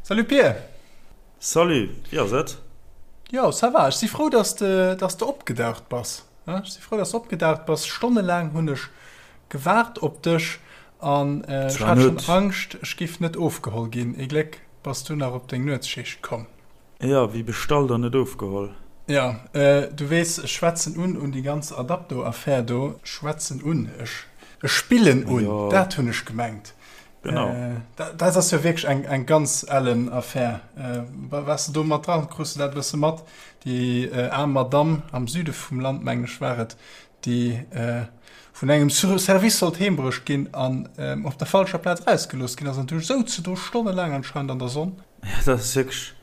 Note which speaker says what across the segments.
Speaker 1: Salut Pir!
Speaker 2: Salut, wéi ass et?
Speaker 1: Jo, ça va. Ech si frou, dass de, dass de opgedaucht bass. Ech si frou, dass de opgedaucht bass. Stonnelaang hunn ech gewaart op dech an ech hat schonn Angscht, ech giff net ofgeholl ginn. Ee Gléck bass du nach op deng Nuetsschicht komm.
Speaker 2: Jo, wéi bestallt an net ofgeholl.
Speaker 1: Jo, du weess, ech schwätzen un un déi ganz Adapto-Affär do. Schwätzen un, ech spillen un, dat hunn ech gemengt.
Speaker 2: Genau.
Speaker 1: Dat ass jo wierklech eng, eng ganz ellen Affär. Waars de do mat dran? Krus de dat e bësse mat? Déi aarm Madamm am Süde vum Land, mengen ech war et, déi vun engem Service sollt heembruecht ginn an op der falscher Plaz erausgelooss ginn ass an du souz se do stonnelaang anscheinend an der Sonn.
Speaker 2: Jo, dat ass wierklech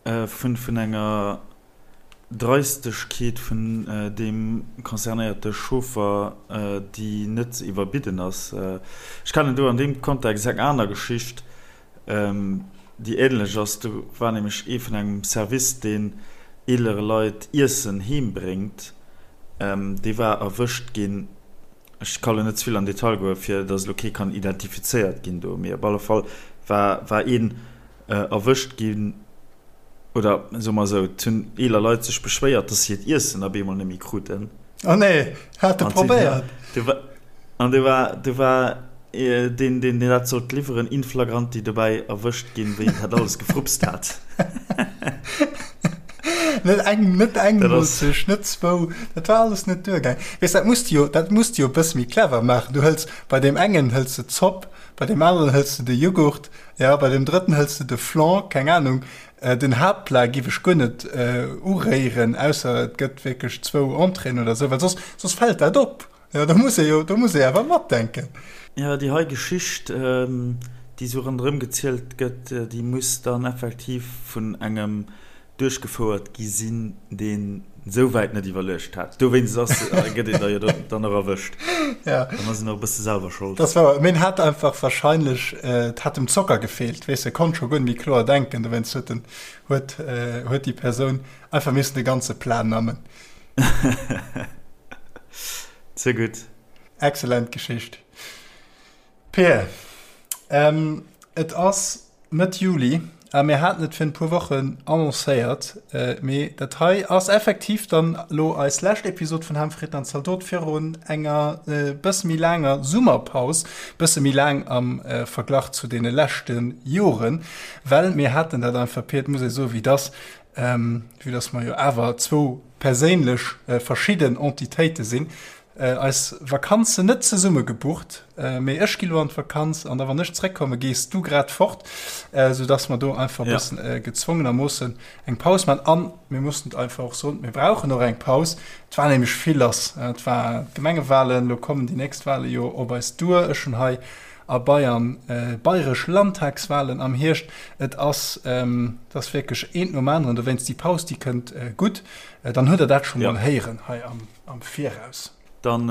Speaker 2: vun, vun enger Dreistegkeet vun deem concernéierte Chauffer, déi net ze iwwerbidden ass. Ech kennen do an deem Kontext eng aner Geschicht, déi änlech ass. Do war nämlech ee vun engem Service, deen eelere Leit Iessen heem bréngt, dee war erwëscht ginn, ech ka lo net ze vill an Detail goen, fir datt elo kee kann identifizéiert ginn do, mee op alle Fall war war een erwëscht ginn, oder soe mer esou, et hunn eeler Leit sech beschwéiert, dass se hiert Iessen op eemol net méi kruten.
Speaker 1: Oh nee, hat e probéiert?
Speaker 2: An du war, du war deen, deen dat sollt liwweren, in flagranti dobäi erwëscht ginn, wéi en dat alles gefrupst hat.
Speaker 1: Net eng, net eng Moolzecht, net zwou, dat war alles net duergaangen. Weess, dat muss de jo, dat muss de jo e bësse méi clever maachen. Du hëls, bei deem engen hëls de d'Zopp, bei deem aneren hëls de de Jughurt, Jo, bei dem drëtten hëls de de Flan, keng Ahnung. Den Haaptplat giff ech guer net uréieren, ausser et gëtt wierklech zwou Entréeën oder sou, well soss, soss fält dat op. Jo, do muss ee jo, do muss ee awer matdenken.
Speaker 2: Jo, déi hei Geschicht, déi sou ronderëm gezielt gëtt, déi muss dann effektiv vun engem duerchgefouert gi sinn, deen esou wäit net iwwerluecht hat. Dowéinst ass, gëtt een da jo dann och erwëscht.
Speaker 1: Ja.
Speaker 2: Dann ass een och e bësse selwer
Speaker 1: schold. Das war, mee en hat einfach wahrscheinlech, et hat em Zocker gefeelt, weess de, konnt scho guer net méi kloer denken, dowéinst huet en, huet, huet déi Persoun einfach missen de ganze Plat nammen.
Speaker 2: Ze gutt.
Speaker 1: Excellent Geschicht. Peer, et ass Mëtt Juli a mir haten et virun e puer Wochen annoncéiert, mee dat hei ass effektiv dann elo eis lescht Episod vun Ham, Fritten an Zaldot virun enger bësse méi laanger Summerpaus, bësse méi laang am Verglach zu deene leschte Joren, well mir haten dat einfach, Pir, et muss ee soen, wéi et ass, vue dass mer jo awer zwou perséinlech verschidden Entitéite sinn, Eis Vakanzen net zesumme gebucht, mee ech gi lo an d'Vakanz an da wann ech zréckkomme gees du grad fort, sou dass mer do einfach e bëssen gezwongenermoossen eng Paus man. An mir mussen et einfach och soen, mir brauchen och eng Paus. Et war nämlech vill lass, et war d'Gemengewalen, lo kommen déi nächst Wale jo op eis duer. Ech hunn hei a Bayern bayresch Landtagswalen am Hierscht. Et ass, et ass wierklech eent nom aneren, dowéinst déi Paus, déi kënnt gutt. Dann hutt der dat scho mol héieren hei am. Am Viraus.
Speaker 2: Dann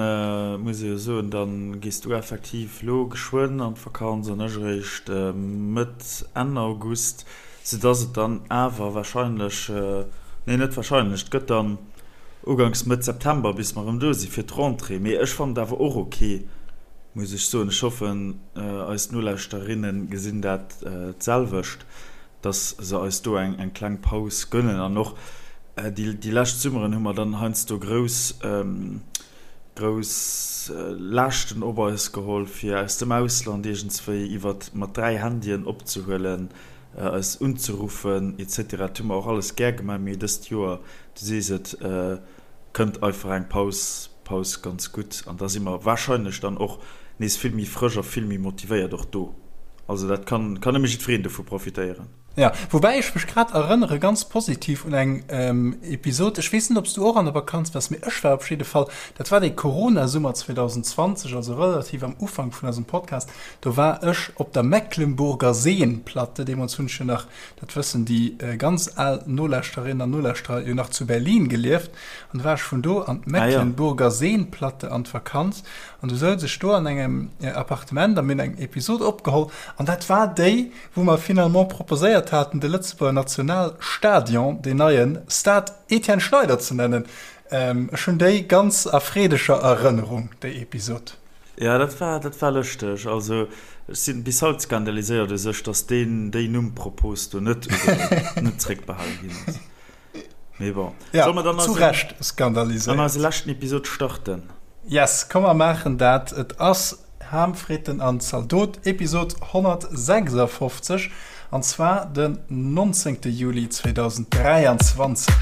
Speaker 2: muss ee jo soen, da gees du effektiv lo geschwënn an d'Vakanz an ech eréischt Mëtt, Enn August, soudass et dann awer wahrscheinlech, nee net wahrscheinlech, et gëtt dann uganks Mëtt September bis mer erëm do si fir d'Rentrée. Mee ech fannen et awer och ok, muss ech soen. Ech hoffen eis Nolauschterinnen gesinn dat d'selwecht. dass se eis do eng eng kleng Paus gönnen an och déi déi lescht Summeren hu mer dann heiansdo grouss grouss Laaschten op eis geholl fir aus dem Ausland iergendswéi iwwert mat 3 Handyen opzehuelen, eis unzeruffen etc. Dat hu mer och alles gär gemaach, mee dëst Joer, du sees et, kënnt einfach eng Paus Paus ganz gutt an da si mer wahrscheinlech dann och nees vill méi frësch a vill méi motivéiert och do. Also dat kann kann nëmme jiddwereen dovu profitéieren.
Speaker 1: Jo, woubäi ech mech grad erënnere ganz positiv un eng Episod, ech weess net ob s du och an der Vakanz waars, mee ech war op jidde Fall, dat war dee Corona-Summer 2020, also relativ am Ufank vun eisem Podcast, do war ech op der Mecklenburger Seenplatte, deemools hunn ech jo nach, dat wëssen déi ganz al Nolauschterinnen an Nolauschterer, jo nach zu Berlin gelieft, An du war ech vun do an d'Mecklenburger Seenplatte an d'Vakanz an du souz ech do an engem Appartement a mir hunn eng Episod opgeholl an dat war déi, wou mer finalement proposéiert haten, de Lëtzebuerger Nationalstadion, deen neien Stade Etienne Schneider ze nennen. Ech hunn déi ganz a freedeger Erënnerung, déi Episod.
Speaker 2: Jo, dat war, dat war lëschteg. Also. Ech sinn bis haut skandaliséiert u sech, dass deen déi Numm-Propos do net ugeholl, net zréckbehale ginn ass. Mee bon.
Speaker 1: Ja, Solle mer dann zu Recht skandaliséiert.
Speaker 2: An eise leschten Episod starten?
Speaker 1: Yes, komm mer maachen dat. Et ass Ham, Fritten an Zaldot, Episod 156, an zwar den 19. Juli 2023.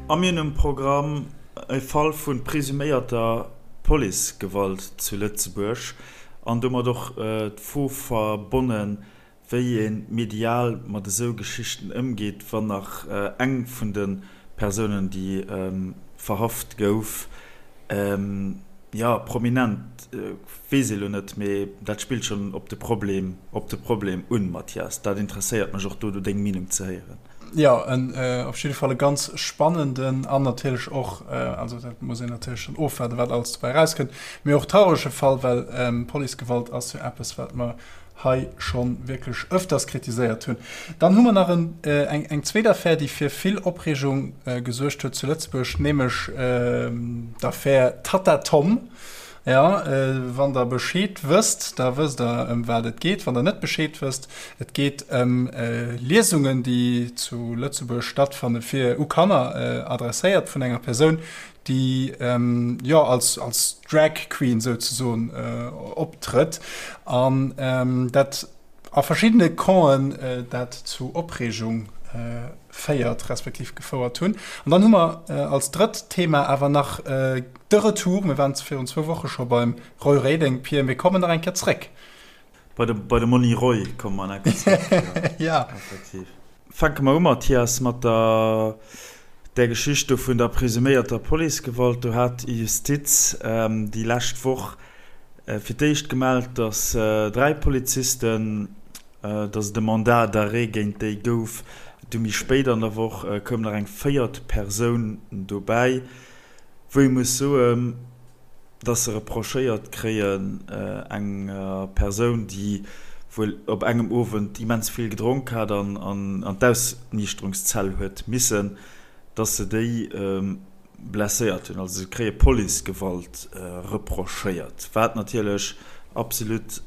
Speaker 2: A mir hunn um Programm e Fall vu presuméierter Policegewalt zu Lëtzebuerg an domat och d'Fro verbonnen, wéi ee medial mat esou Geschichten ëmgeet, wann nach eng vun de Persounen, déi verhaft gouf, jo, prominent weess ee lo net, mee dat spillt schonn op de Problem, op de Problem un, Mathias. Dat interesséiert mech och do, do deng Meenung ze héieren.
Speaker 1: Jo, en op jidde Fall e ganz spannenden an natierlech och, also dat muss een natierlech dann ofwaarden, wat alles dobäi erauskënnt, mee och traurege Fall, well Policegewalt ass jo eppes, wat mer hei scho wierklech öfters kritiséiert hunn. Dann hu mer nach en, eng, eng zweet Affär, déi fir vill Opreegung gesuergt huet zu Lëtzebuerg, nämlech d'Affär Tatta Tom. Jo, wann Der Bescheed wësst, da wësst Der, ëm wat et geet. Wann Der net Bescheed wësst, et geet ëm Liesungen, déi zu Lëtzebuerg stattfanne fir u Kanner adresséiert vun enger Persoun, déi jo als als Drag Queen souzesoen optrëtt an dat a verschiddene Campen dat zu Opreegung féiert respektiv gefouert hunn. An dann hu mer als drëtt Thema awer nach de Retour, mir waren virun zwou Woche scho beim Roy Reding, Pir, mir kommen nach eng Kéier zréck.
Speaker 2: Bei de, bei de Monni Roy komme mer nach eng Kéier zréck, jo.
Speaker 1: Ja.
Speaker 2: Effektiv. Fänke mer u, Mathias, mat der, där Geschicht do vun der presuméierter Policegewalt. Do hat d'Justiz déi lescht Woch fir d'éischt gemellt, datt 3 Polizisten, datt et e Mandat d'arrêt géint déi gouf. Du méi spéit an der Woch koum nach eng véiert Persoun dobäi, wou ee muss soen, dass se reprochéiert kréien, enger Persoun, déi wuel op engem Owend immens vill gedronk hat an an d'Ausniichterungszell huet missen, dass se déi blesséiert hunn. Also se kréie Policegewalt reprochéiert, wat natierlech absolut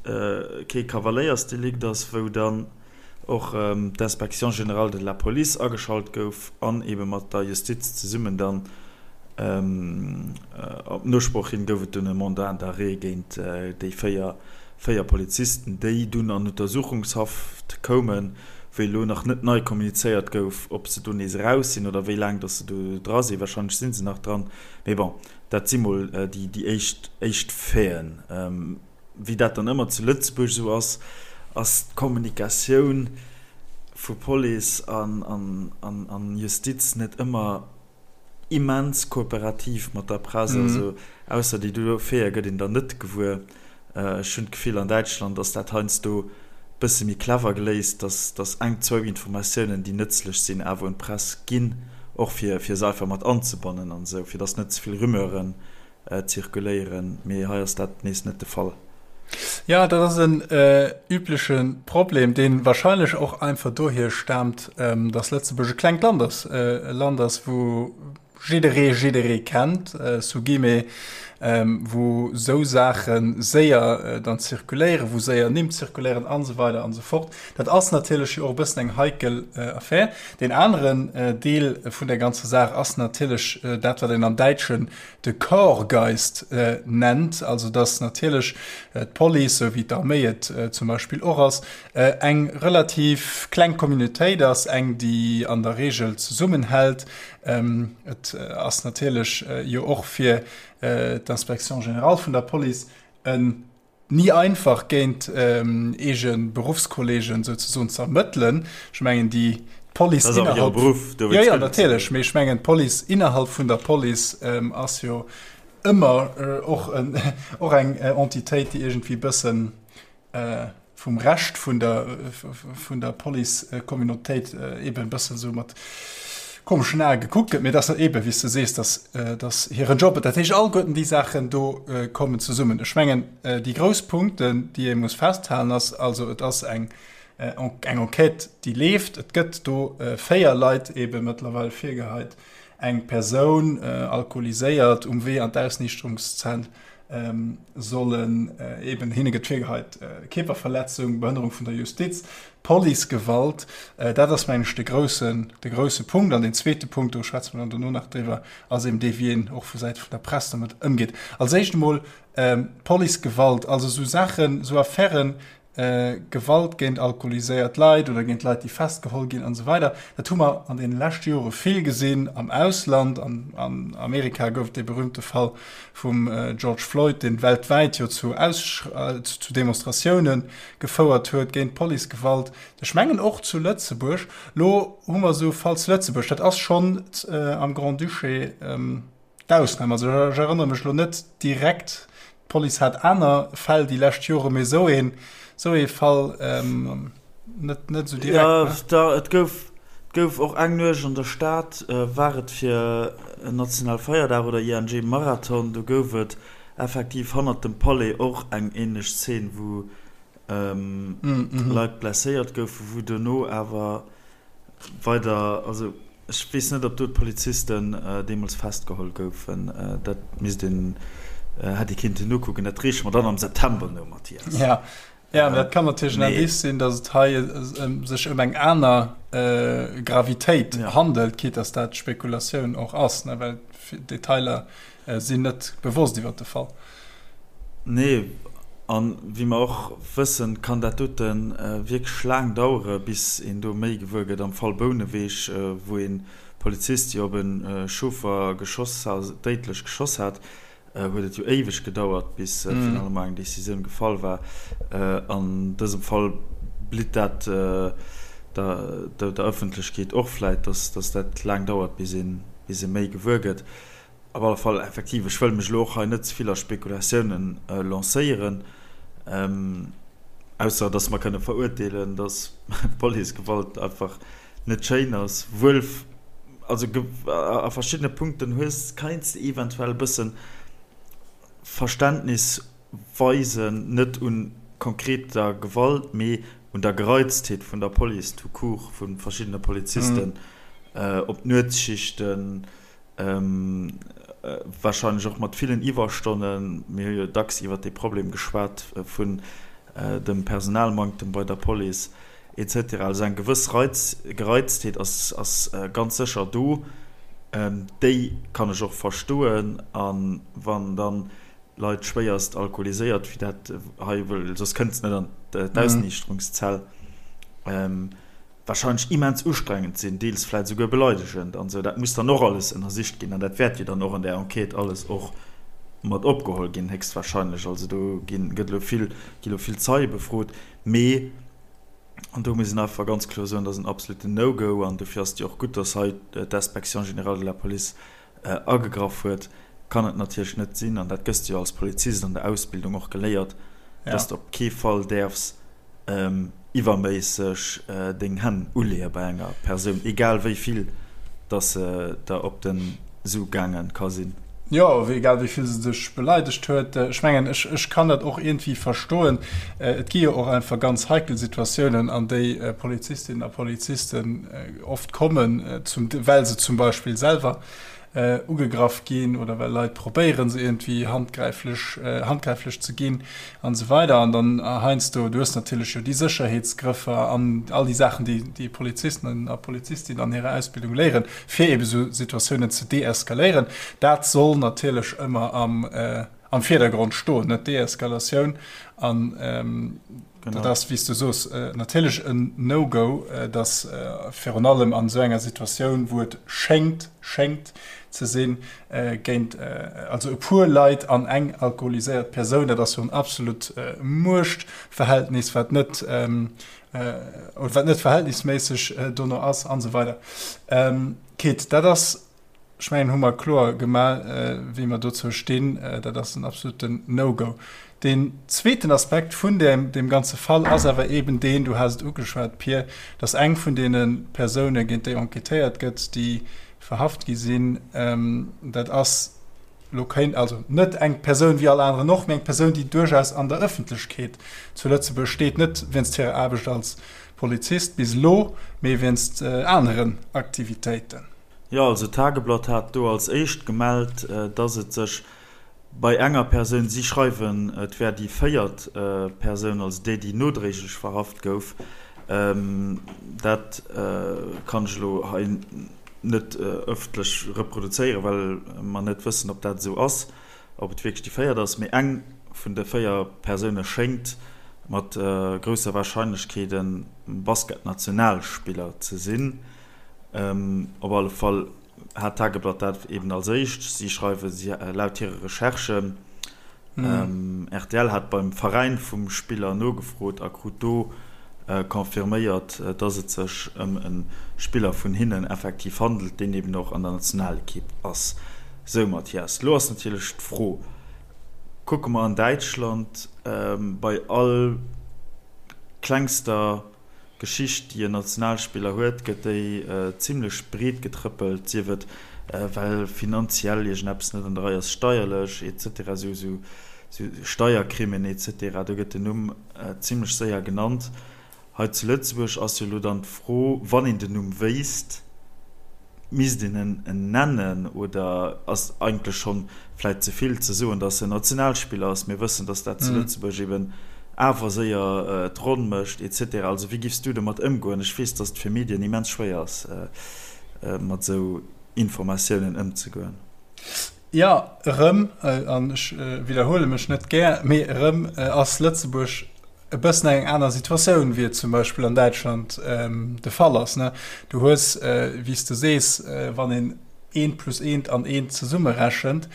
Speaker 2: kee Kavaléiersdelikt ass, wou dann och d'Inspection générale de la police ageschalt gouf an ebe mat der Justiz zesummen dann op Nosproch hin gouf et dunn e Mandat d'arrêt géint déi 4 Polizisten, déi dunn an Untersuchungshaft koumen, wéi elo nach net nei kommunizéiert gouf, ob se do nees eraus sinn oder wéi laang datt se do dra sinn. Warscheinlech si se nach dran, mee bon, dat si mol déi éischt Faiten. Wéi dat dann ëmmer zu Lëtzebuerg esou ass, ass d'Kommunikatioun vu Police an Justiz net ëmmer immens kooperativ mat der Press. Also ausser déi do Faite gëtt een der net gewuer. Ech hunn d'Gefill, an Däitschland ass dat heiansdo bësse méi clever geléist, dass dass eng, zwou Informatiounen, déi nëtzlech sinn, awer un d'Press ginn, och fir fir se einfach mat anzebannen an esou, fir dass net ze vill Rumeuren zirkuléieren, mee hei ass dat nees net de Fall.
Speaker 1: Jo, dat ass en übleche Problem, dee warscheinlech och einfach dohier staamt, dass Lëtzebuerg e klengt Land ass, e Land ass, wou jidderee jidderee kennt, sous guillemets, wou esou Saache séier dann zirkuléieren, wou séier Nimm zirkuléieren an esou weider an esou fort. Dat ass natierlech jo och e bëssen eng heikel Affär. Deen aneren Deel vun der ganzer Saach ass natierlech dat, wat een am Däitschen de Korpsgeist nennt, also datt natierlech d'Police, esou wéi d'Arméi et zum Beispill och ass, eng relativ kleng Communautéit ass, eng, déi an der Reegel zesummenhält. Et ass natierlech jo och fir d'Inspection générale vun der Police en Ni einfach géint eege Beruffskolleegen souzesoen ze ermëttelen. Ech mengen déi d'Police
Speaker 2: Dat ass awer hire
Speaker 1: innerhalb
Speaker 2: Beruff,
Speaker 1: jo
Speaker 2: dowéinst
Speaker 1: jo
Speaker 2: gëtt et se
Speaker 1: natierlech,
Speaker 2: jo.
Speaker 1: mee ech mengen d'Police innerhalb vun der Police ass jo ëmmer och en och eng Entitéit, déi iergendwéi bëssen vum Rescht vun der vun der Police-Communautéit eben e bëssen esou mat. komeschen Ae gekuckt gëtt, mee dass dat eeben, wéi s de sees, dass, dass hiren Job, dat heescht alleguerten déi Saachen do kommen zesummen. Ech mengen, déi grouss Punkten, déi ee muss festhalen, ass also, et ass eng, eng Enquête, déi leeft. Et gëtt do 4 Leit eebe mëttlerweil virgeheit, eng Persoun, alkoholiséiert, um Wee an d'Ausniichterungszell, sollen eben, hinne gëtt virgeheit, Kierperverletzung, Behënnerung vun der Justiz, Policegewalt. Dat ass, mengen ech, de groussen, de grousse Punkt. An deen zweete Punkt, do schwätze mer dann dono nach driwwer, ass eben dee, wéi een och vu Säite vun der Press domat ëmgeet. Als éischt emol Policegewalt, also esou Saachen, esou Affären, Gewalt géint alkoholiséiert Leit oder géint Leit, déi festgeholl ginn an esou weider, dat hu mer an deene leschte Jore vill gesinn am Ausland. An an Amerika gouf et dee berühmte Fall vum George Floyd, dee weltwäit jo zu zu Demonstratioune gefouert huet géint Policegewalt. Ech mengen och zu Lëtzebuerg. Lo hu mer esou e Fall zu Lëtzebuerg, dat ass schonn am Grand-Duché, D'Ausnam, also ech erënnere mech elo net direkt, d'Police hat aner Fäll déi lescht Jore, mee esou een, esou ee Fall net, net esou direkt.
Speaker 2: Jo, da, et gouf, et gouf och eng Nuecht an der Stad, war et fir en nationale Feierdag oder ING Marathon, do gouf et effektiv hannert dem Palais och eng änlech Zeen, wou Leit blesséiert goufen, wou dono awer weider, also ech weess net, ob do d'Polizisten deemools festgeholl goufen, dat misst een, hätt ee kinnten nokucken, dat reeche mer dann am September no, Mathias.
Speaker 1: Ja, ja, mä dat kann natierlech en Indice sinn, datt et hei sech ëm eng aner Gravitéit handelt, quitte datt dat Spekulatioun och ass, ne, well Detailer sinn net bewosst iwwer de Fall.
Speaker 2: Nee, a wéi mer och wëssen, kann dat dote wierklech laang dauere bis een do méi gewuer gëtt. Am Fall Bouneweg, wou ee Polizist jo op e Chauffer geschoss, déidlech geschoss hat, huet et jo éiweg gedauert, bis finalement eng Decisioun gefall war. An dësem Fall blitt dat der Ëffentlechkeet och vläit, dass dat laang dauert, bis ee méi gewuer gëtt. Op alle Fall, effektiv, ech wëll mech elo och hei net ze vill a Spekulatiounen lancéieren, ausser dass mer kënne verurteelen, dass Policegewalt einfach net schéin ass. Wuel, also a verschiddene Punkten hues, keins de eventuell e bësse Verständnis weisen, net un konkreter Gewalt, mee un der Gereiztheet vun der Police tout court, vu verschiddene Polizisten op Nuetsschichten, Wahrscheinlech och mat villen Iwwerstonnen. Mir hu jo dacks iwwert dee Problem geschwat vun dem Personalmanktem bei der Police et cetera. Also eng gewëss Gereiztheet ass ganz sécher do. Déi kann ech och verstoen. A wann dann Leit schwéierst alkoholiséiert, wéi dat hei, well soss kënnt se net an d'Ausniichterungszell, Wahrscheinlech immens ustrengend sinn, deels vläit esouguer beleidegend an esou. Dat muss dann och alles ënnersicht ginn an dat wäert jo dann och an där Enquête alles och mat opgeholl ginn, héchstwahrscheinlech. Also do ginn, gëtt elo vill, gi elo vill Zeie befrot. Mee, an do muss een einfach ganz kloer soen, dat ass en absoluten No-Go an dofir ass et jo och gutt, dass hei d'Inspection générale de la Police agegraff huet, kann et natierlech net sinn, an dat gëss de jo als Polizist an der Ausbildung och geléiert, dass de op kee Fall däerfs iwwerméisseg deng Hänn uleeë bei enger Persoun, egal wéi vill dass se der op de Su gaange ka sinn.
Speaker 1: Jo, egal wéi vill se dech beleidegt huet. Ech mengen, ech kann dat och iergendwéi verstoen. Et gi jo och einfach ganz heikel Situatiounen, an déi Polizistinnen a Polizisten oft kommen, well se zum Beispill selwer ugegraff ginn oder well Leit probéieren, se iergendwéi handgräiflech, handgräiflech ze ginn an esou weider. An dann heiansdo, du hues natierlech jo déi Sécherheetsgrëffer an all déi Saachen, déi déi Polizisten a Polizistinnen an hirer Ausbildung léieren, fir eebe sou Situatiounen ze deeskaléieren. Dat soll natierlech ëmmer am, am Virdergrond stoen, net d'Deeskalatioun. An dat ass, wéi s du soos, natierlech en No-Go, dass virun allem an esou enger Situatioun, wou et schéngt, schéngt ze sinn, géint also e puer Leit an eng alkoholiséiert Persoun, dat ass jo en absolut Muechtverhältnis, wat net, oder wat net verhältnisméisseg dono ass an esou weider. Quitt, dat ass. Ech mengen, hu mer kloer gemaach, wéi mer dozou stinn. Dat ass en absoluten No-Go. Deen zweeten Aspekt vun deem ganze Fall ass awer eeben deen, du has et ugeschwat, Pir, dass eng vun deene Persounen, géint déi enquêtéiert gëtt, déi verhaft gi sinn, dat ass elo kéint, also net eng Persoun wéi all aneren och, mee eng Persoun, déi duerchaus an der Ëffentlechkeet zu Lëtzebuerg steet, net wéinst hirer Aarbecht als Polizist bis elo, mee wéinst aneren Aktivitéiten.
Speaker 2: Jo, also d'Tageblatt hat do als éischt gemellt, dass et sech bei enger Persoun, si schreiwen, et wär déi véiert Persoun, also déi, déi nodréiglech verhaft gouf, dat kann ech elo hei net ëffentlech reproduzéieren, well mer net wëssen, ob dat esou ass, ob et wierklech déi véiert ass, mee eng vun de 4 Persoune schéngt mat grousser Warscheinlechkeet e Basketnationalspiller ze sinn. Op alle Fall hat d'Tageblatt dat eben als éischt. Si schreiwe si laut hire Recherchen. Rtl hat beim Veräin vum Spiller nogefrot a krut do confirméiert, dass et sech ëm e Spiller vun hinnen effektiv handelt, deen eben och an der Nationalekipp ass. Sou Mathias, lo ass natierlech d'Fro, kucke mer an Däitschland bei all klengster Geschicht, déi en Nationalspiller huet, gëtt déi zimlech breet getrëppelt, sief et well finanziell iergendeppes net an der Rei ass, steierlech et cetera, esou esou Steiercrimen et cetera, do gëtt den Numm zimlech séier genannt. Hei zu Lëtzebuerg ass jo elo dann d'Fro, wann een den Numm wéisst, Misst een en nennen oder ass eigentlech schonn vläit ze vill ze soen, datt en Nationalspiller ass? Mir wëssen, datt dat zu Lëtzebuerg eben awer séier d'Ronn mécht et cetera. Also wéi giffs du domat ëmgoen? Ech weess, datt et fir Medien immens schwéier ass, mat esou Informatiounen ëmzegoen.
Speaker 1: Jo, erëm, an ech widderhuele mech net gär, mee erëm ass Lëtzebuerg e bëssen eng aner Situatioun, wéi et zum Beispill an Däitschland de Fall ass. Du hues, wéi s de sees, wann een eent plus eent an eent zesummerechent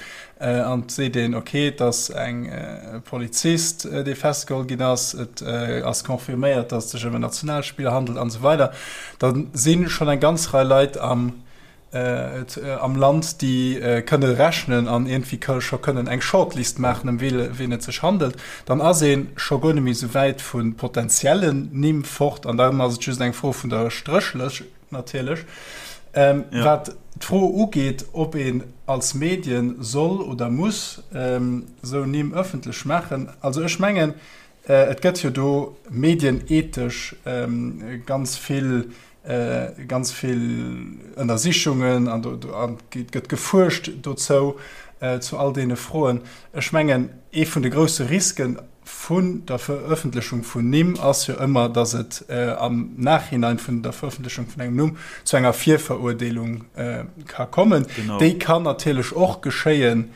Speaker 1: an et seet een, okay, et ass eng Polizist, dee festgeholl ginn ass, et ass confirméiert, datt et sech ëm en Nationalspiller handelt an esou weider, da si schonn eng ganz Rei Leit am am Land, déi kënne rechnen an iergendwéi scho kënnen eng Shortlist maachen, ëm wien et sech handelt, dann ass ee scho guer net méi esou wäit vu potenziellen Nimm fort an dann ass et just eng Fro vun der Stréchlëscht natierlech. Wat d'Fro ugeet, ob een als Medien soll oder muss esou Nimm ëffentlech maachen, also ech mengen, et gëtt jo do medienethesch ganz vill ganz vill Ënnersichungen an do gëtt gefuerscht dozou, zu all deene Froen. Ech mengen, ee vun de grousse Risken vun der Verëffentlechung vun Nimm ass jo ëmmer, datt et am Nachhinein vun der Verëffentlechung vun engem Numm zu enger Virverurdeelung ka kommen. Déi kann natierlech och geschéien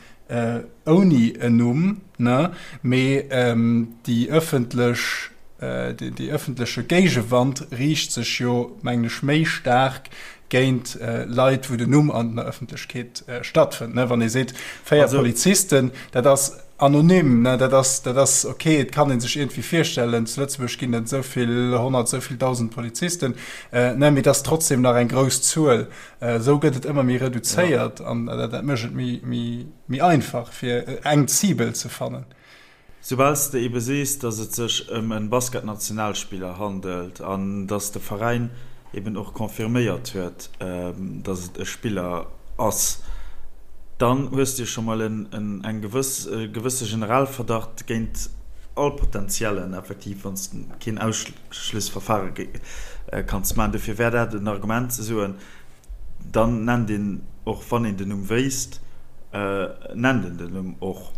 Speaker 1: ouni en Numm, ne, mee déi ëffentlech, dee ëffentleche Géigewand riicht sech jo, mengen ech, méi staark géint Leit, wou den Numm an der Ëffentlechkeet stattfënnt, ne. Wann ee seet, 4 Polizisten, dat ass anonym, ne, dat ass, dat ass ok, et kann ee sech iergendwéi virstellen, zu Lëtzebuerg ginn et esou vill 100, esou vill 1.000 Polizisten, ne, mee et ass trotzdem nach eng grouss Zuel. Esou gëtt et ëmmer méi reduzéiert an dat mécht et méi einfach, fir eng Cible ze fannen.
Speaker 2: Soubal s de ebe sees, datt et sech ëm e Basketnationalspiller handelt an datt de Veräin eben och confirméiert huet, datt et e Spiller ass, dann hues de jo scho mol eng gewëss, e gewësse Generalverdacht géint all Potentiellen, effektiv, wann s de keen Schlussverfahre kanns maachen. Dofir wär dat en Argument ze soen, dann nennt een och, wann een den Numm wéisst, nennt een den Numm och.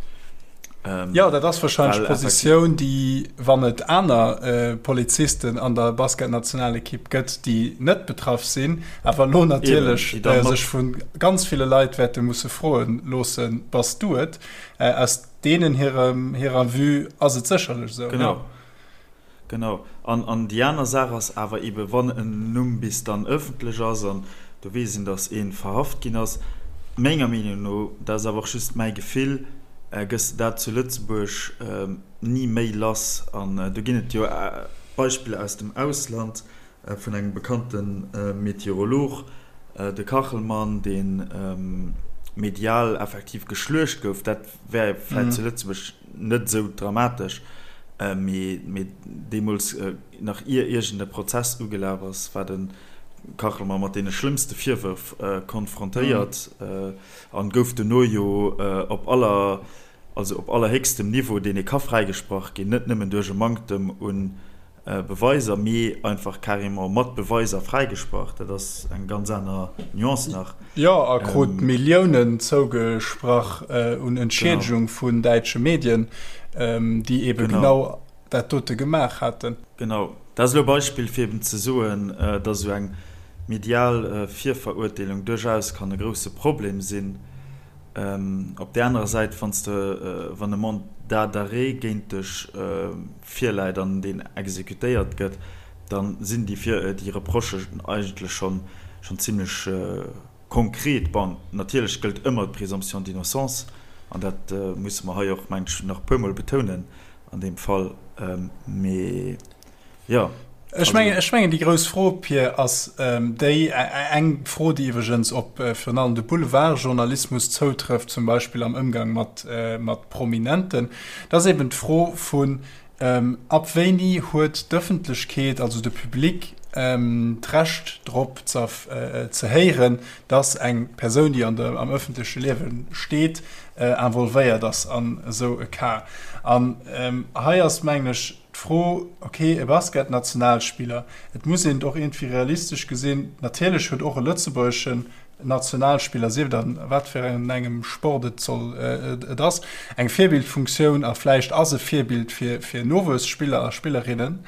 Speaker 1: Jo, dat ass warscheinlech d'Positioun, déi, wann et aner Polizisten an der Basketnationalekipp gëtt, déi net betraff sinn, awer elo natierlech sech vu ganz ville Leit wäerte musse froe loossen, Bass du et? Aus deenen hirer Vue ass et sécherlech esou.
Speaker 2: Genau. Genau. An, an déi aner Saach ass awer eebe wann en Numm bis dann ëffentlech ass an do weess een, datt ee verhaft ginn ass, menger Meenung no, dat ass awer och just mäi Gefill, gëss de dat zu Lëtzebuerg ni méi lass. An do ginn et jo Beispiller aus dem Ausland vun engem bekannte Meteorolog. De Kachelmann, dee medial effektiv geschluecht gouf, dat wär vläicht zu Lëtzebuerg net esou dramatesch, mee deemools, nach ier iergend e Prozess ugelaf ass, war de Kachelmann mat deene schlëmmste Virwërf konfrontéiert an gouf dono jo op aller, also op allerhéchstem Niveau, deen ee ka fräigesprach ginn, net nëmmen duerch e Manktem un Beweiser, mee einfach carrément mat Beweiser fräigesprach. Dat ass eng ganz aner Nuance nach.
Speaker 1: Jo, a krut Milliounen zougesprach un Entschiedegung vun däitsche Medien, déi ebe genau dat dote gemaach haten.
Speaker 2: Genau. Dat ass elo e Beispill, fir eben ze soen, datt esou eng medial Virverurteelung duerchaus kann e grousse Problem sinn. Op där anerer Säit, wann s de, wann e Mandat d'arrêt géint dech virläit an deen exekutéiert gëtt, da sinn déi Vir, déi Reprochen eigentlech schonn, schonn zimlech konkret. Bon, natierlech gëllt ëmmer d'Présomption d'innocence an dat musse mer hei och, mengen ech, nach e puermol betounen an deem Fall. Mee jo.
Speaker 1: Ech mengen, ech mengen déi grouss Fro, Pir, ass déi, eng Fro, déi iwwregens op virun allem de Boulevardjournalismus zoutrëfft, zum Beispill am Ëmgang mat, mat Prominenten, dat ass eben d'Fro vun, ab wéini huet d'Ëffentlechkeet, also de Public, d'Recht drop ze, ze héieren, dass eng Persoun, déi an der, am ëffentleche Liewe steet, involvéiert ass an esou e Cas. An hei ass, mengen ech, D'Fro, ok, e Basketnationalspiller, et muss een et och iergendwéi realistesch gesinn, natierlech huet och e lëtzebuergeschen Nationalspiller, sief et an wat fir engem Sport et soll et ass, eng Virbildfunktioun a vläicht ass e Virbild fir fir Nowuesspiller a Spillerinnen.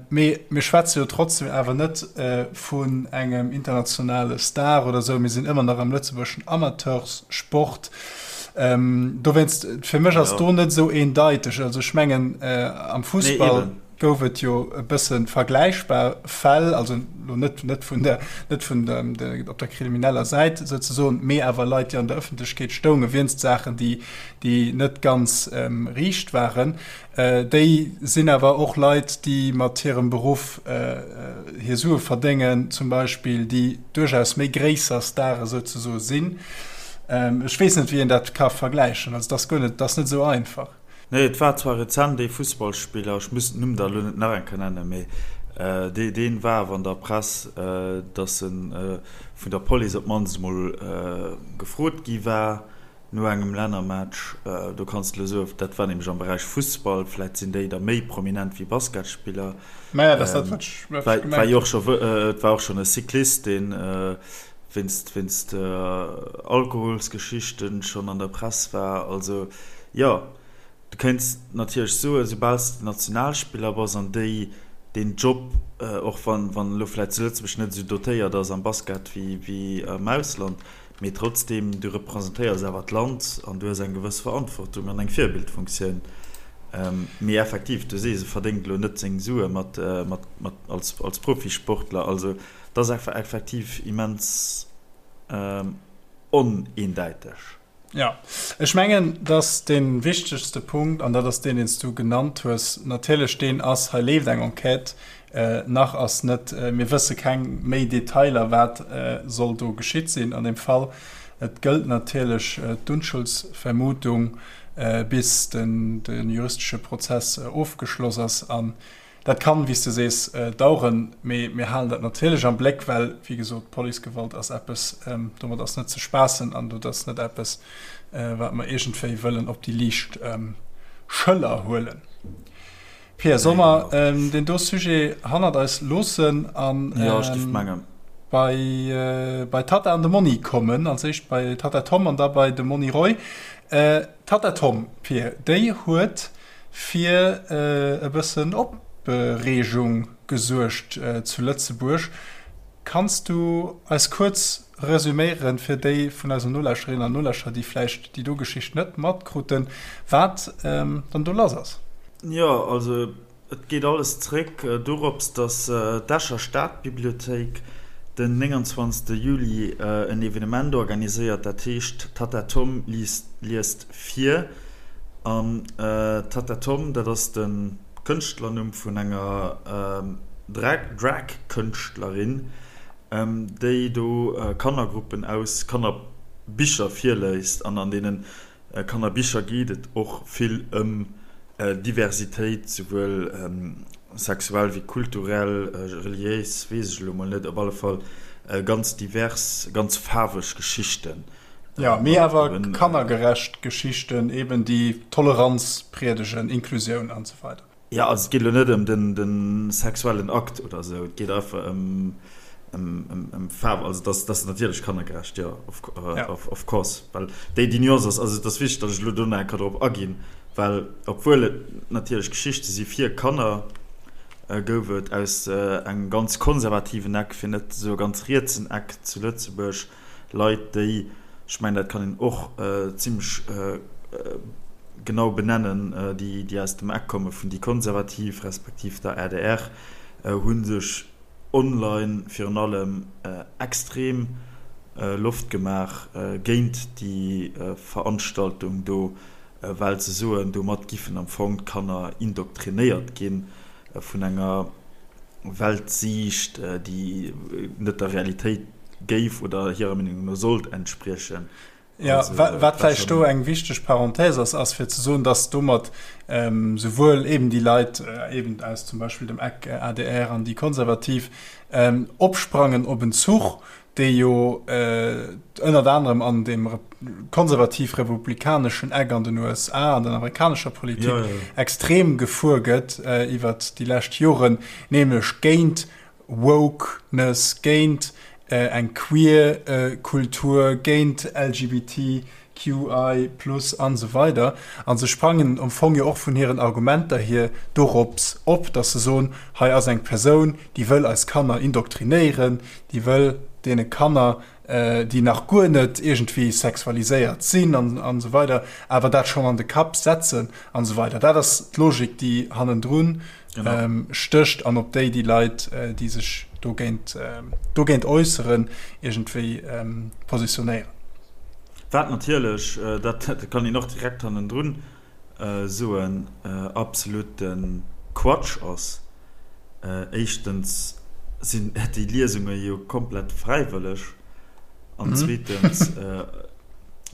Speaker 1: Mee mir schwätze jo trotzdem awer net vun engem internationale Star oder esou, mir sinn ëmmer nach am lëtzebuergeschen Amateurssport. Dowéinst, fir mech ass do net esou eendeiteg. Also ech mengen, am Fussball gouf et jo e bësse vergläichbar Fäll, also elo net net vun der net vun der op der krimineller Säit souzesoen, mee awer Leit, déi an der Ëffentlechkeet stounge wéinst Saachen, déi déi net ganz riicht waren. Déi sinn awer och Leit, déi mat hirem Beruff hir Sue verdéngen, zum Beispill, déi duerchaus méi gréisser Stare souzesoe sinn. Ech weess net, wéi een dat ka vergläichen. Also, et ass guer net, et ass net esou einfach.
Speaker 2: Nee, et war zwar rezent ee Fussballspiller, ech muss den Numm da elo net nach eng Kéier nennen, mee dee, dee war awer an der Press, datt e vun der Police op d'mannst emol gefrot gi war, No engem Lännermatch, do kanns de elo soen, dat war nämlech am Beräich Fussball, vläit sinn déi da méi prominent wéi Basketspiller.
Speaker 1: Maja, dat ass dat, wat ech gemengt hunn.
Speaker 2: War jo och scho, et war och schonn e Cyclist, dee wéinst, wéinst Alkoholsgeschichten schonn an der Press war. Also jo, du kéints natierlech soen, soubal s de Nationalspiller bass an déi deen Job, och wann, wann elo vläit zu Lëtzebuerg net esou dotéiert ass am Basket wéi, wéi am Ausland, Mee trotzdeem, du representéiers awer d'Land an du hues eng gewëss Verantwortung an eng Virbildfunktioun. Mee effektiv, du sees, e verdéngt elo net seng Sue mat, mat, mat als, als Profisportler. Also et ass einfach effektiv immens oneendäiteg.
Speaker 1: Jo, ech mengen, dass dee wichtegste Punkt, an dat ass deen, deen s du genannt hues, natierlech deen ass, hei leeft eng Enquête, nach ass net, mir wësse keng méi Detailer, wat soll do geschitt sinn an deem Fall. Et gëllt natierlech d'Unschuldsvermutung, bis de juristesche Prozess ofgeschloss ass. An Dat kann, wéi s de sees, daueren, mee mir halen dat natierlech am Bléck, well, wéi gesot, Policegewalt ass eppes, domat ass net ze spaassen an dat ass net eppes, wat mer iergendwéi wëllen op déi liicht Schëller huelen. Pia, solle mer deen do Sujet hannert eis loossen a bei d'Tatta an de Monni kommen? Als éischt bei d'Tatta Tom an da bei de Monni Roy. D'Tatta Tom, Pia, déi huet fir e bëssen Opreegung gesuergt zu Lëtzebuerg. Kanns du eis kuerz resüméieren, fir déi vun eisen Nolauschterinnen an Nolauschterer, déi vläicht déi do Geschicht net matkruten, wat dann do lass ass?
Speaker 2: Jo, also Et geet alles zréck dorops, datt d'Escher Stadbibliothéik den 29 Juli en Evenement organiséiert, dat heescht Tatta Tom liest vir. An Tatta Tom, dat ass de Kënschtlernumm vun enger Drag-Kënschtlerin. déi do Kannergruppen aus Kannerbicher virléist an an deene Kannerbicher geet et och vill ëm Diversitéit, souwuel sexuell wéi kulturell, reliéis, weess ech elo mol net, op alle Fall ganz divers, ganz faarweg Geschichten.
Speaker 1: Jo, mee awer kannergerecht Geschichten eben, déi Toleranz priedegen, Inklusioun an esou weider.
Speaker 2: Jo, also et geet elo net ëm de sexuellen Akt oder esou, et geet einfach ëm Faarf. Also dat ass natierlech kannergerecht, jo, of course. Well déi Nuance ass, also et ass wichteg, datt ech elo do nach eng Kéier drop aginn, well obwuel et natierlech Geschichte si fir Kanner, gouf et aus engem ganz konservativen Eck, fir net ze soe ganz rietsen Eck zu Lëtzebuerg, Leit, déi, ech mengen, dat kann een och zimlech genau benennen, déi, déi aus dem Eck komme vun déi Konservativ respektiv der adr, hu sech online virun allem extrem Loft gemaach géint déi Veranstaltung do, well se soen, domat giffen am Fong d'Kanner indoktrinéiert ginn vun enger Weltsiicht, déi net der Realitéit géif oder hirer Meenung no sollt entspriechen.
Speaker 1: Jo, wat vläicht do eng wichteg Parenthèse ass, ass fir ze soen, dass domat souwuel eben déi Leit eben aus zum Beispill dem Eck adr an déi Konservativ opsprangen op en Zuch, dee jo ënnert anerem an deem konservativ-republikaneschen Eck an den USA, an der amerikanescher Politik extrem gefuer gëtt iwwert déi lescht Joren, nämlech géint Wokeness, géint eng queer Kultur, géint LGBT QI plus an esou weider A se sprangen am Fong jo och vun hiren Argumenter hier dorops op, datt se soen, hei ass eng Persoun, déi wëll eis Kanner indoktrinéieren, déi wëll deene Kanner, déi nach guer net iergendwéi sexualiséiert sinn an esou weider, awer dat schonn an de Kapp setzen an esou weider. Dat ass d'Logik, déi hannendrun stécht an op déi déi Leit, déi sech dogéint, dogéint äusseren, iergendwéi positionéieren.
Speaker 2: Wat natierlech, dat kann een och direkt hannendrun soen, absolute Quatsch ass. Éischtens sinn déi Liesunge jo komplett fräiwëlleg an zweetens,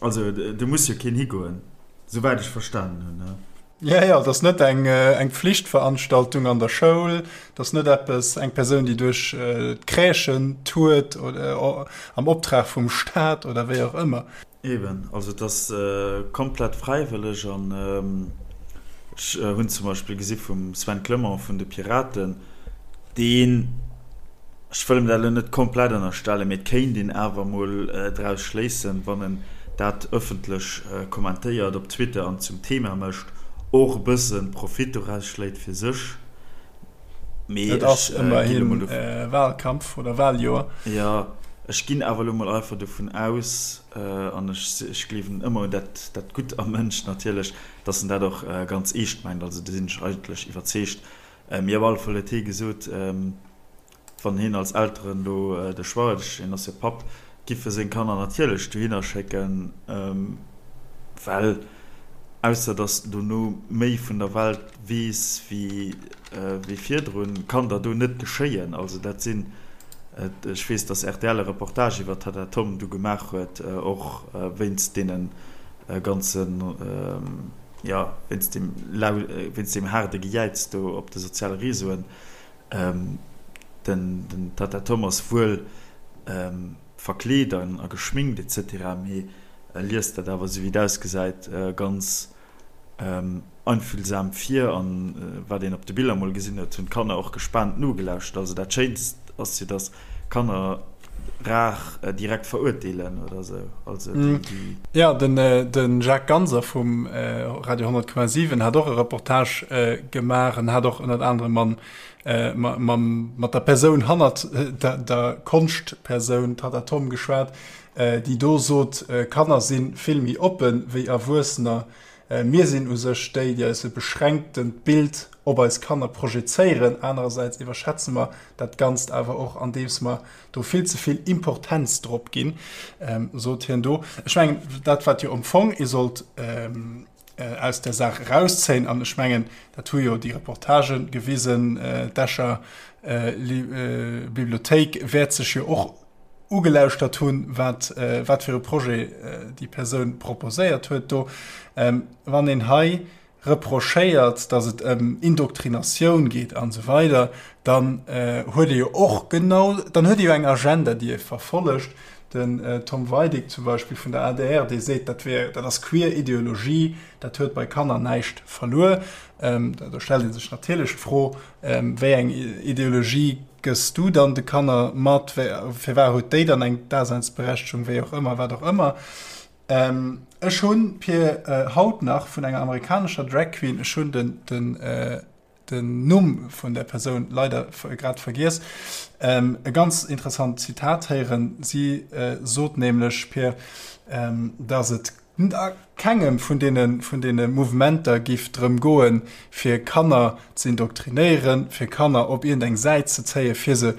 Speaker 2: also do muss jo keen higoen, souwäit ech verstanen hunn.
Speaker 1: Jo, jo, et ass net eng eng Pflichtveranstaltung an der Schoul, et ass net eppes, eng Persoun, déi duerch d'Crèchen tourt oder am Optrag vum Staat oder wéi och ëmmer.
Speaker 2: Eben, also et ass komplett fräiwëlleg an ech hunn zum Beispill gesi vum Sven Clement vun de Piraten, deen, Ech wëll em dat elo net komplett ënnerstellen, mee et kéint een awer emol draus schléissen, wann en dat ëffentlech kommentéiert op Twitter an zum Thema mécht, och e bësse Profit doraus schléit fir sech.
Speaker 1: Mee Et ass ech ginn elo mol dovu. Wahlkampf oder Wahljoer.
Speaker 2: Jo, ech ginn awer elo mol einfach dovun aus, an ech gleewen ëmmer un dat dat Gutt am Mënsch natierlech, datt en dat och ganz eescht mengt. Also do sinn ech eigentlech iwwerzeegt. Mee op alle Fall huet hie gesot, wann hien als Elteren do de Choix huet, hien ass jo Papp, giff e seng Kanner natierlech dohinner schécken, well ausser datt en dono méi vun der Welt weess wéi virdrun, kann der do net geschéien. Also dat sinn, ech weess, datt rtl e Reportage iwwer d'Tatta Tom du gemaach huet, och wéinst deene ganzen, jo, wéinst deem lau, wéinst deem haarde Gejäiz do op de soziale Réseauen. Den, den Tata Tom ass wuel verkleet an a geschminkt et cetera, mee e liest dat awer, esou wéi et ausgesäit, ganz einfühlsam vir. An wat een op de Biller mol gesinn huet, hunn d'Kanner och gespaant nogelauschtert. Also dat Schéinst ass jo, dass Kanner rar direkt verurteelen oder sou. Also déi,
Speaker 1: déi. Jo, den, de Jacques Ganser vum Radio 100,7 hat och e Reportage gemaach en hat och ënnert anerem mam, mam, mat der Persoun hannert der, der Konschtpersoun Tatta Tom geschwat, déi do sot, Kanner si vill méi oppe wéi Erwuessener. Mir sinn u sech déi, déi eis e beschränktent Bild op eis Kanner projezéieren. Anerersäits iwwerschätze mer dat Ganzt awer och, andeems mer do vill ze vill Importenz drop ginn, sot hien do. Ech mengen, dat wat jo am Fong ee sollt. aus där Saach erauszéien, an ech mengen, dat hu jo déi Reportage gewisen, d'Escher Bibliothéik wäert sech jo och ugelauschtert hunn, wat wat fir e Projet déi Persoun proposéiert huet do. Wann een hei reprochéiert, datt et ëm Indoktrinatioun geet an esou weider, dann huet ee jo och genau, dann huet ee jo eng Agenda, déi ee verfollegt. Den Tom Weidig zum Beispill vun der adr, dee seet, dat wär, dat ass queer Ideologie, dat huet bei Kanner näischt verluer. Do stellt ee sech natierlech d'Fro, wéi eng Ideologie gëss du dann de Kanner mat, firwat huet déi dann eng Daseinsberechtegung, wéi och ëmmer, wat och ëmmer. Ech hunn, Pir, haut nach vun enger amerikanescher Drag Queen, ech hunn den, den, den Numm vun der Persoun leider grad vergiess, e ganz interessant Zitat héieren. Si sot nämlech, Pir, dass et a kengem vun deene, vun deene Mouvementer giff drëm goen, fir Kanner ze indoktrinéieren, fir Kanner op iergendeng Säit ze zéien, fir se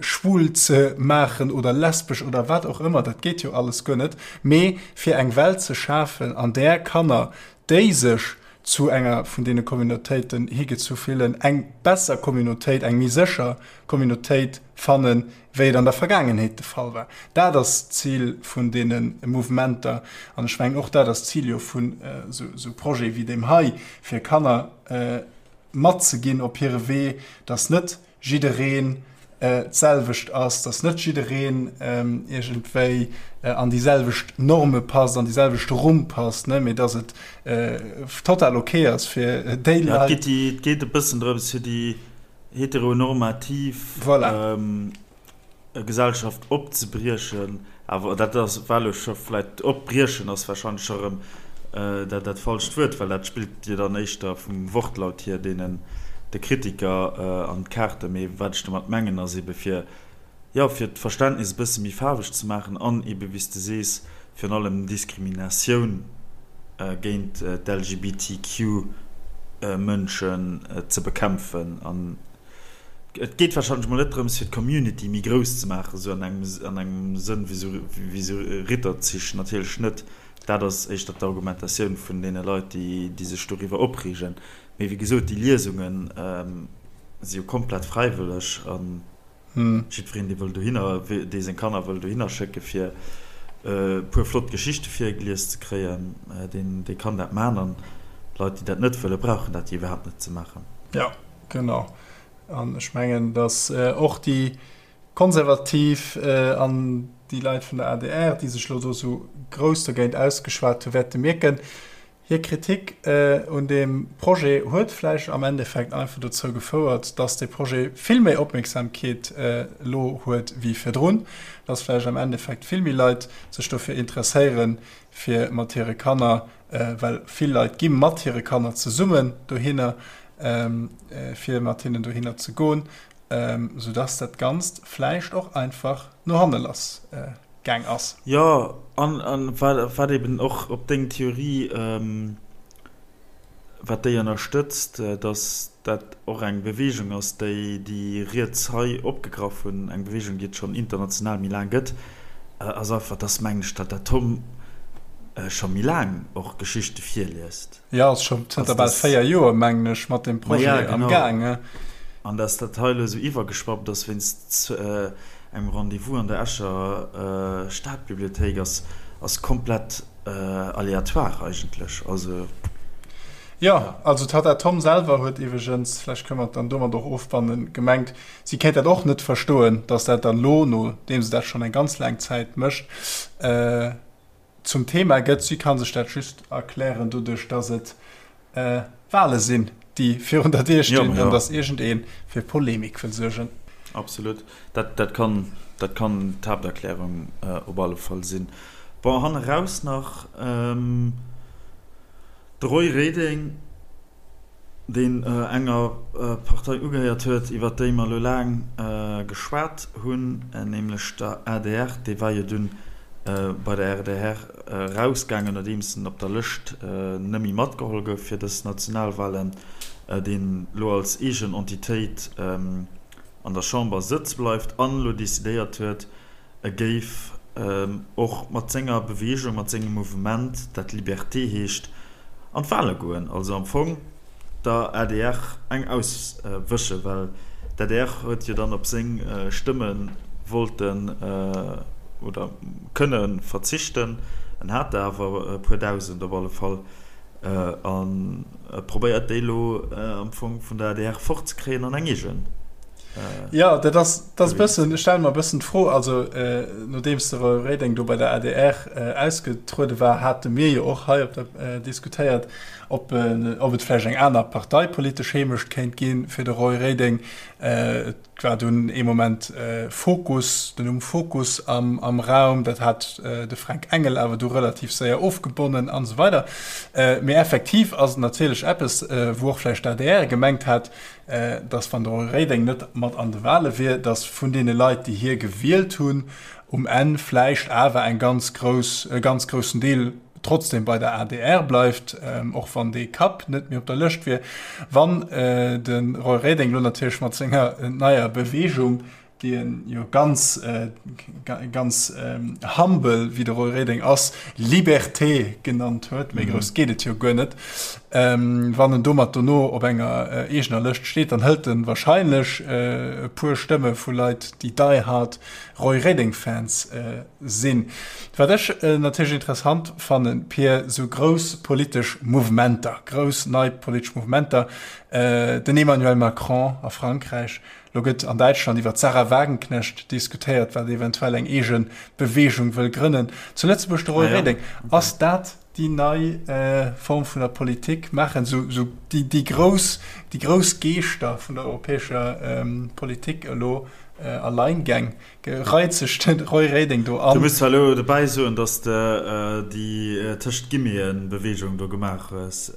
Speaker 1: schwul ze maachen oder lesbesch oder wat och ëmmer, dat geet jo alles guer net, mee fir eng Welt ze schafen, an där Kanner, déi sech zu enger vun deene Communautéiten higezu fillen, eng besser Communautéit, eng méi sécher Communautéit fannen, wéi et an der Vergaangenheet de Fall war. Dat ass d'Zil vun deene Mouvementer. An ech mengen, och dat ass d'Zil jo vun esou Projete wéi deem hei, fir Kanner matzeginn op hire Wee, dass net jiddereen d'selwecht ass, dass net jiddereen iergendwéi an déi selwecht Norme passt, an déi selwecht Rumm passt, mee dass et total ok ass fir déi
Speaker 2: Leit. Et geet e bëssen drëms, fir déi heteronormativ Gesellschaft opzebriechen, awer dat ass war elo scho vläit, opbriechen ass warscheinlech scho erëm dat dat falscht Wuert, well dat spillt jo dann éischter vum Wortlaut hier deenen de Kritiker an d'Kaarten. Mee wat ech domat mengen ass ebe fir, jo, fir d'Verständnis e bësse méi faarweg ze maachen an ebe wéi s de sees, virun allem Diskriminatioun géint d'LGBTQ-Mënschen ze bekämpfen. An et geet warscheinlech mol net drëms, fir d'Community méi grouss ze maachen, esou an engem an engem Sënn wéi esou wéi esou Ritterzich, natierlech net. Dat ass éischter d'Argumentatioun vun deene Leit, déi déi sech doriwwer opreegen. Mee wéi gesot, déi Liesunge si jo komplett fräiwëlleg an. Jiddwereen, dee wëll dohinner, dee seng Kanner wëll dohinner schécke fir e puer flott Geschichte virgelies ze kréien, deen, dee kann dat man. An Leit, déi dat net wëllen, brauchen dat jo iwwerhaapt net ze maachen.
Speaker 1: Jo, genau. An ech mengen, datt och déi Konservativ an déi Leit vun der adr, déi sech elo do esou grouss dogéint ausgeschwat hu, wäerte mierken, Hir Kritik un deem Projet huet vläicht am Endeffekt einfach dozou gefouert, dass dee Projet vill méi Opmierksamkeet elo huet wéi virdrun, dass vläicht am Endeffekt vill méi Leit sech dofir interesséieren, fir mat hire Kanner, well vill Leit gi mat hire Kanner zesummen dohinner, fir mat hinnen dohinner ze goen, soudass dat Ganzt vläicht och einfach no hanne lass gaang ass.
Speaker 2: Jo, an wat eben och op deng Theorie, wat déi ënnerstëtzt, datt dat och eng Beweegung ass, déi déi Riets hei opgegraff hunn, eng Beweegung, déi et schonn international méi laang gëtt, ass einfach, datt, mengen ech, datt dat Tom scho méi laang och Geschichte virliest.
Speaker 1: Jo, ass scho zënter bal 4 Joer, mengen ech, mat deem Projet am Gaang.
Speaker 2: An datt dat hei elo esou iwwergeschwappt ass wéinst engem Rendez-vous an der Escher Stadbibliothéik, ass, ass komplett aléatoire eigentlech. Also.
Speaker 1: Jo, also d'Tatta Tom selwer huet iwweregens, vläicht kënne mer et dann domat och ofbannen, gemengt, si kéint dat och net verstoen, datt dat dann elo, nodeem se dat schonn eng ganz laang Zäit mécht, zum Thema gëtt. Si ka sech dat just erklären doduerch, dass et Wale sinn, déi virun der Dier stinn an dass iergendee fir Polemik wëll suergen.
Speaker 2: Absolut, dat kann dat kann d'Haapterklärung op alle Fall sinn. Bon, hanneraus nach de Roy Reding. deen enger Partei ugehéiert huet, iwwer déi mer elo laang geschwat hunn, nämlech der adr, dee war jo dunn bei der rdr erausgaangen, nodeems en op der Lëscht net méi matgeholl gouf fir dës Nationalwahlen, deen elo als eegen Entitéit an der Chamber sëtze bleift an elo decidéiert huet, E géif och mat senger Beweegung, mat sengem Mouvement, dat Liberté heescht, an d'Wale goen, also am Fong der adr eng auswëschen, well d'ADR huet jo dann op seng Stëmme wollten oder kënne verzichten. En hat der awer e puer Dausend op alle Fall a probéiert déi elo am Fong vun der adr fortzekréien an eng eegen.
Speaker 1: Jo, dat ass, dat ass e bëssen, ech stelle mer e bëssen d'Fro, also nodeems de Roy Reding do bei der adr ausgetruede war, hate mir jo och hei op der diskutéiert, ob ob et vläicht eng aner parteipolitesch Heemecht kéint gi fir de Roy Reding. Et war dunn ee Moment Fokus, den Numm Fokus am am Raum, dat hat de Fränk Engel awer du relativ séier ofgebonnen an esou weider. Mee effektiv ass et natierlech eppes, wou och vläicht d'ADR gemengt hat, dass wann de Roy Reding net mat an de Wahle wier, dass vun deene Leit, déi hie gewielt hunn, um Enn vläicht awer eng ganz grouss, e ganz groussen Deel trotzdem bei der adr bleift, och wann dee Kapp net méi op der Lëscht wier. Wann de Roy Reding elo natierlech mat senger neier Bewegung, déi en jo ganz, ganz humble, wéi de Roy Reding ass, Liberté genannt huet, méi grouss geet et jo guer net, wann en domat dono op enger eegener Lëscht steet, dann hëlt en wahrscheinlech e puer Stëmme vu Leit, déi die hard Roy Reding-Fans sinn. Wat ech natierlech interessant fannen, Pir, sou grouss politesch Mouvementer, grouss nei politesch Mouvementer, den Emmanuel Macron a Frankräich, Lo gëtt an Däitschland iwwer d'Sahra Wagenknecht diskutéiert, wat eventuell eng eege Beweegung wëll grënnen. Zu Lëtzebuerg de Roy Reding. Ass dat déi nei Form vun der Politik? Maachen esou déi grouss, déi grouss Geeschter vun der europäescher Politik elo Alleingäng? Reit sech de Roy Reding do an?
Speaker 2: Du muss zwar elo dobäi soen, datt s de déi tëscht Guillemeten-Beweegung do gemaach hues.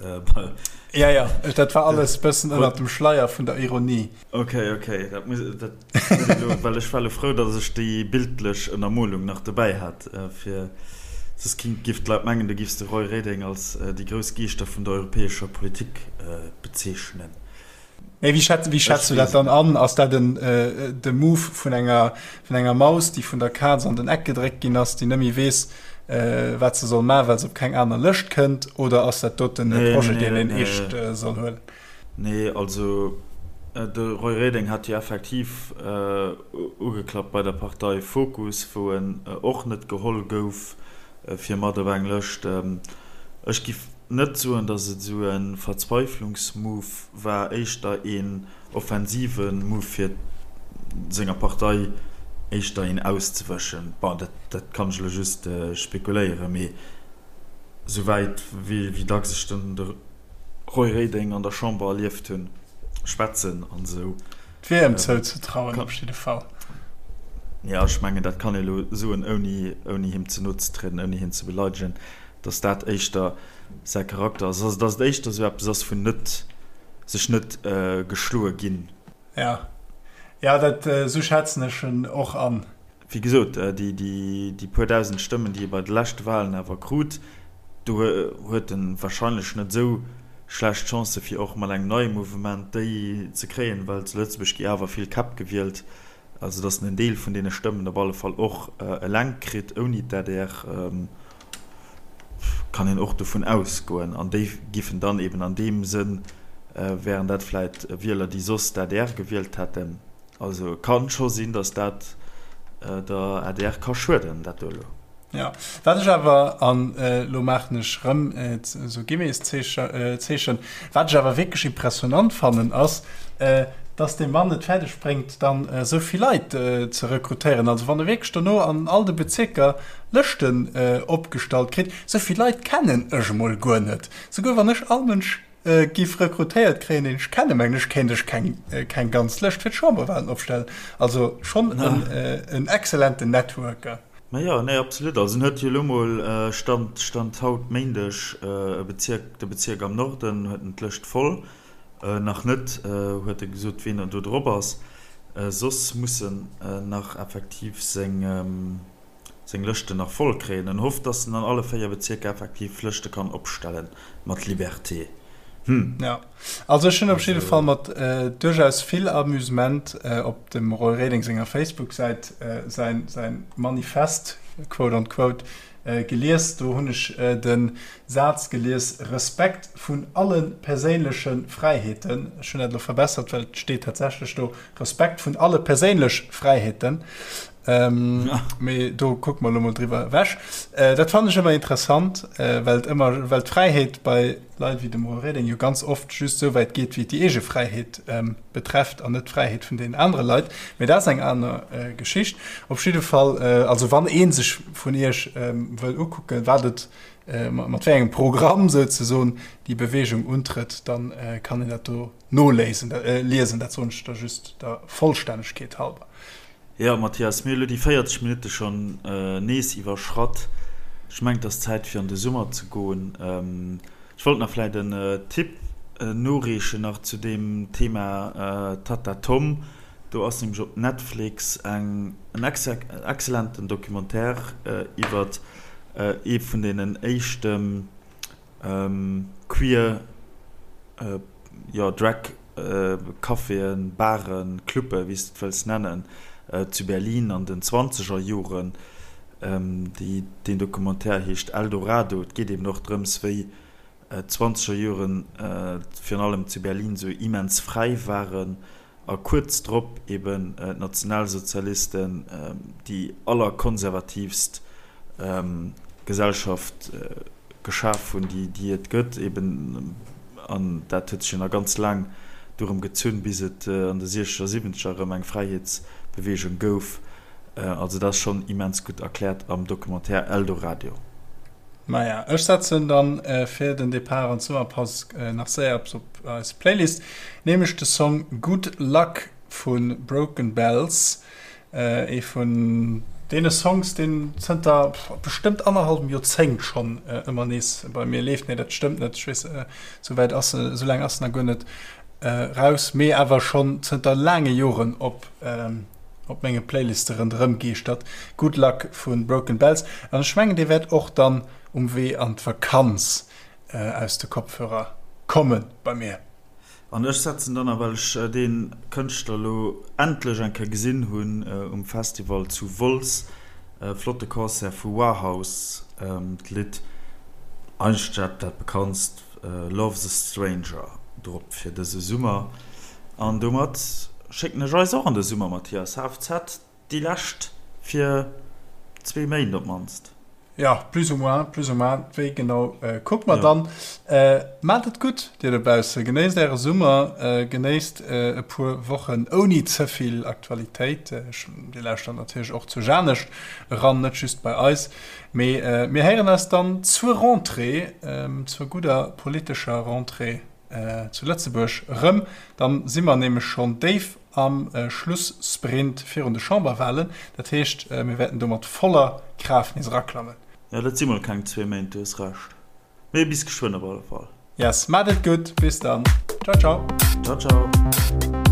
Speaker 1: Ja, ja, dat war alles bëssen ënnert dem Schleier vun der Ironie.
Speaker 2: Ok, ok, dat muss, dat muss elo, well ech war elo frou, datt ech déi bildlech Ënnermolung nach dobäi hat, fir soss kinnt, giff d'Leit mengen, du giffs de Roy Reding als déi grouss Geeschter vun der europäescher Politik bezeechnen.
Speaker 1: Mee wéi schätz, wéi schätz du dat dann an? Ass dat en, de Move vun enger, vun enger Maus, déi vun der Kaz an den Eck gedréckt ginn ass, déi net méi weess, wat se soll maachen, well se op keng aner Lëscht kënnt, oder ass dat doten e Projet, deen een eescht soll huelen?
Speaker 2: Nee, also de Roy Reding hat jo effektiv ugeklappt bei der Partei Fokus, wou en och net geholl gouf fir mat op eng Lëscht. Ech giff net soen, datt et esou e Verzweiflungsmove war, éischter een offensive Move fir senger Partei éischter een auszewëschen. Bon, dat kann ech elo just spekuléieren, mee souwäit wéi dacks ech den Roy Reding an der Chamber erlieft hunn, schwätzen an esou.
Speaker 1: Et wier em zouzetrauen op jidde Fall.
Speaker 2: Jo, ech mengen, dat kann ee elo soen, ouni, ouni him ze no ze trieden, ouni hien ze beleidegen, datt dat éischter säi Charakter ass. Also, datt et éischter esou eppes ass vun net, sech net geschloe ginn.
Speaker 1: Jo, jo, dat, esou schätzen ech en och an.
Speaker 2: Wéi gesot, déi puer dausend Stëmmen, déi e bei de leschte Walen awer krut, do huet e warscheinlech net esou schlecht Chancë fir och mat engem neie Mouvement déi ze kréien, well zu Lëtzebuerg gi awer vill Käpp gewielt, also datt en en Deel vun deene Stëmmen op alle Fall och eleng kritt ouni d'ADR, kann een och dovun ausgoen. An déi giffen dann eben an deem Sënn, wären dat vläit Wieler, déi soss d'ADR gewielt hätten. Also kann scho sinn, datt dat der adr ka schueden, dat do elo.
Speaker 1: Jo, wat ech awer, an elo maachen ech erëm esou Guillemetszeechen, wat ech awer wierklech impressionant fannen, ass, datt dee Mann et fäerdeg bréngt, dann esou vill Leit ze rekrutéieren. Also wann e wierklech dono an all de Bezierker Lëschten opgestallt kritt, esou vill Leit kennen ech emol guer net. Souguer wann ech all Mënsch Giff rekrutéiert kréien, deen ech kennen, mengen ech, kéint ech keng keng ganz Lëscht fir d'Chamberwahlen opstellen. Also schonn en en excellenten Networker.
Speaker 2: Ma jo, nee, absolut. Also en huet jo elo mol, Stand Stand haut Méindeg, e Bezierk, de Bezierk am Norden huet en d'Lëscht voll. Nach net huet e gesot, ween do drop ass. Soss muss en nach effektiv seng. seng Lëschten nach voll kréien. En hofft, dass en an alle 4 Bezierker effektiv Lëschte kann opstellen mat Liberté. Hm.
Speaker 1: Ja. Also ech hunn op jidde Fall mat duerchaus vill Amusement op dem Roy Reding senger Facebook-Säit säin, säin Manifest, quote on quote, gelies. Do hunn ech de Saz gelies, Respekt vun alle perséinleche Fräiheeten. Ech hunn dat elo verbessert, well et steet tatsächlech do, Respekt vun alle perséinlech Fräiheeten. Mee do kucke mer elo mol driwwer ewech. Dat fannen ech ëmmer interessant, well et ëmmer, well d'Fräiheet bei Leit wéi dem Roy Reding jo ganz oft just esou wäit geet, wéi et déi eege Fräiheet betrefft an net d'Fräiheet vun deenen anere Leit. Mee dat ass eng aner Geschicht. Op jidde Fall, also wann ee sech vun Iech wëll ukucken, wat et, mat wéi engem Programm souzesoen déi Beweegung untrëtt, da kann een dat do noléisen, liesen. Dat soen ech da just der Vollstännegkeet halber.
Speaker 2: Jo, Mathias, mir hu lo déi 40 Minutte schonn nees iwwerschratt. Ech mengen, et ass Zäit fir an de Summer ze goen. Ech wollt nach vläit en Tipp noreechen nach zu deem Thema Tatta Tom. Do ass nämlech op Netflix eng en excellenten Documentaire iwwert ee vun deenen éischte Queer, jo, Drag Caféen, Baren, Clubben, wéi s de et wëlls nennen, zu Berlin an den zwanzeger Joren. Déi, deen Documentaire heescht Eldorado. Et geet eben och drëms, wéi d'zwanzeger Joren virun allem zu Berlin esou immens fräi waren a kuerz drop eben d'Nationalsozialisten déi allerkonservativst Gesellschaft geschaf hunn, déi et gëtt eben. An dat huet sech jo nach ganz laang dorëm gezunn, bis et an de siechzeger, siwwenzeger erëm eng Fräiheetsbeweegung gouf. Also dat ass schonn immens gutt erkläert am Documentaire Eldoradio.
Speaker 1: Maja, ech setzen dann fir den Depart an d'Summerpaus nach séier eppes op eis Playlist, nämlech de Song Good Luck vu Broken Bells, ee vun deene Songs, deen zënter bestëmmt annerhallwem Joerzéngt schonn ëmmer nees bei mir leeft. Nee, dat stëmmt net, ech weess, esou wäit ass en, esou laang ass en nach guer net raus, mee awer schonn zënter laange Joren op op menge Playliste ronderëm geeschtert. Good Luck vu Broken Bells. An ech mengen, dee wäert och dann um Wee an d'Vakanz aus de Kopfhörer komme bei mir.
Speaker 2: An ech setzen dann, a well ech dee Kënschtler elo endlech eng Kéier gesinn hunn um Festival zu Wolz, e flotte Concert vu Warhouse, d'Lidd, eigentlech dat dat bekanntst, Love's a Stranger drop fir dëse Summer. An domat schécken ech eis och an de Summer, Mathias. HFZ, déi lescht fir zwee Méint op d'mannst.
Speaker 1: Jo, plus ou moins, plus ou moins. Wéi genau kucke mer dann. Maacht et gutt, dir dobausse. Genéisst äre Summer, genéisst e puer Wochen ouni ze vill Aktualitéit. Dir lauschtert natierlech och zu Janescht eran, net just bei eis. Mee mir héieren eis dann zur Rentrée, zur gudder politescher Rentrée zu Lëtzebuerg erëm. Dann si mer nämlech schonn déif am Schlussprint virun de Chamberwahlen. Dat heescht, mir wäerten do mat voller Kraaft nees eraklammen.
Speaker 2: Jo, dat si mol keng zwee Méint, du hues Recht. Mee bis geschwënn op alle Fall.
Speaker 1: Yes, maacht et gutt, bis dann. Ciao, ciao.
Speaker 2: Ciao, ciao.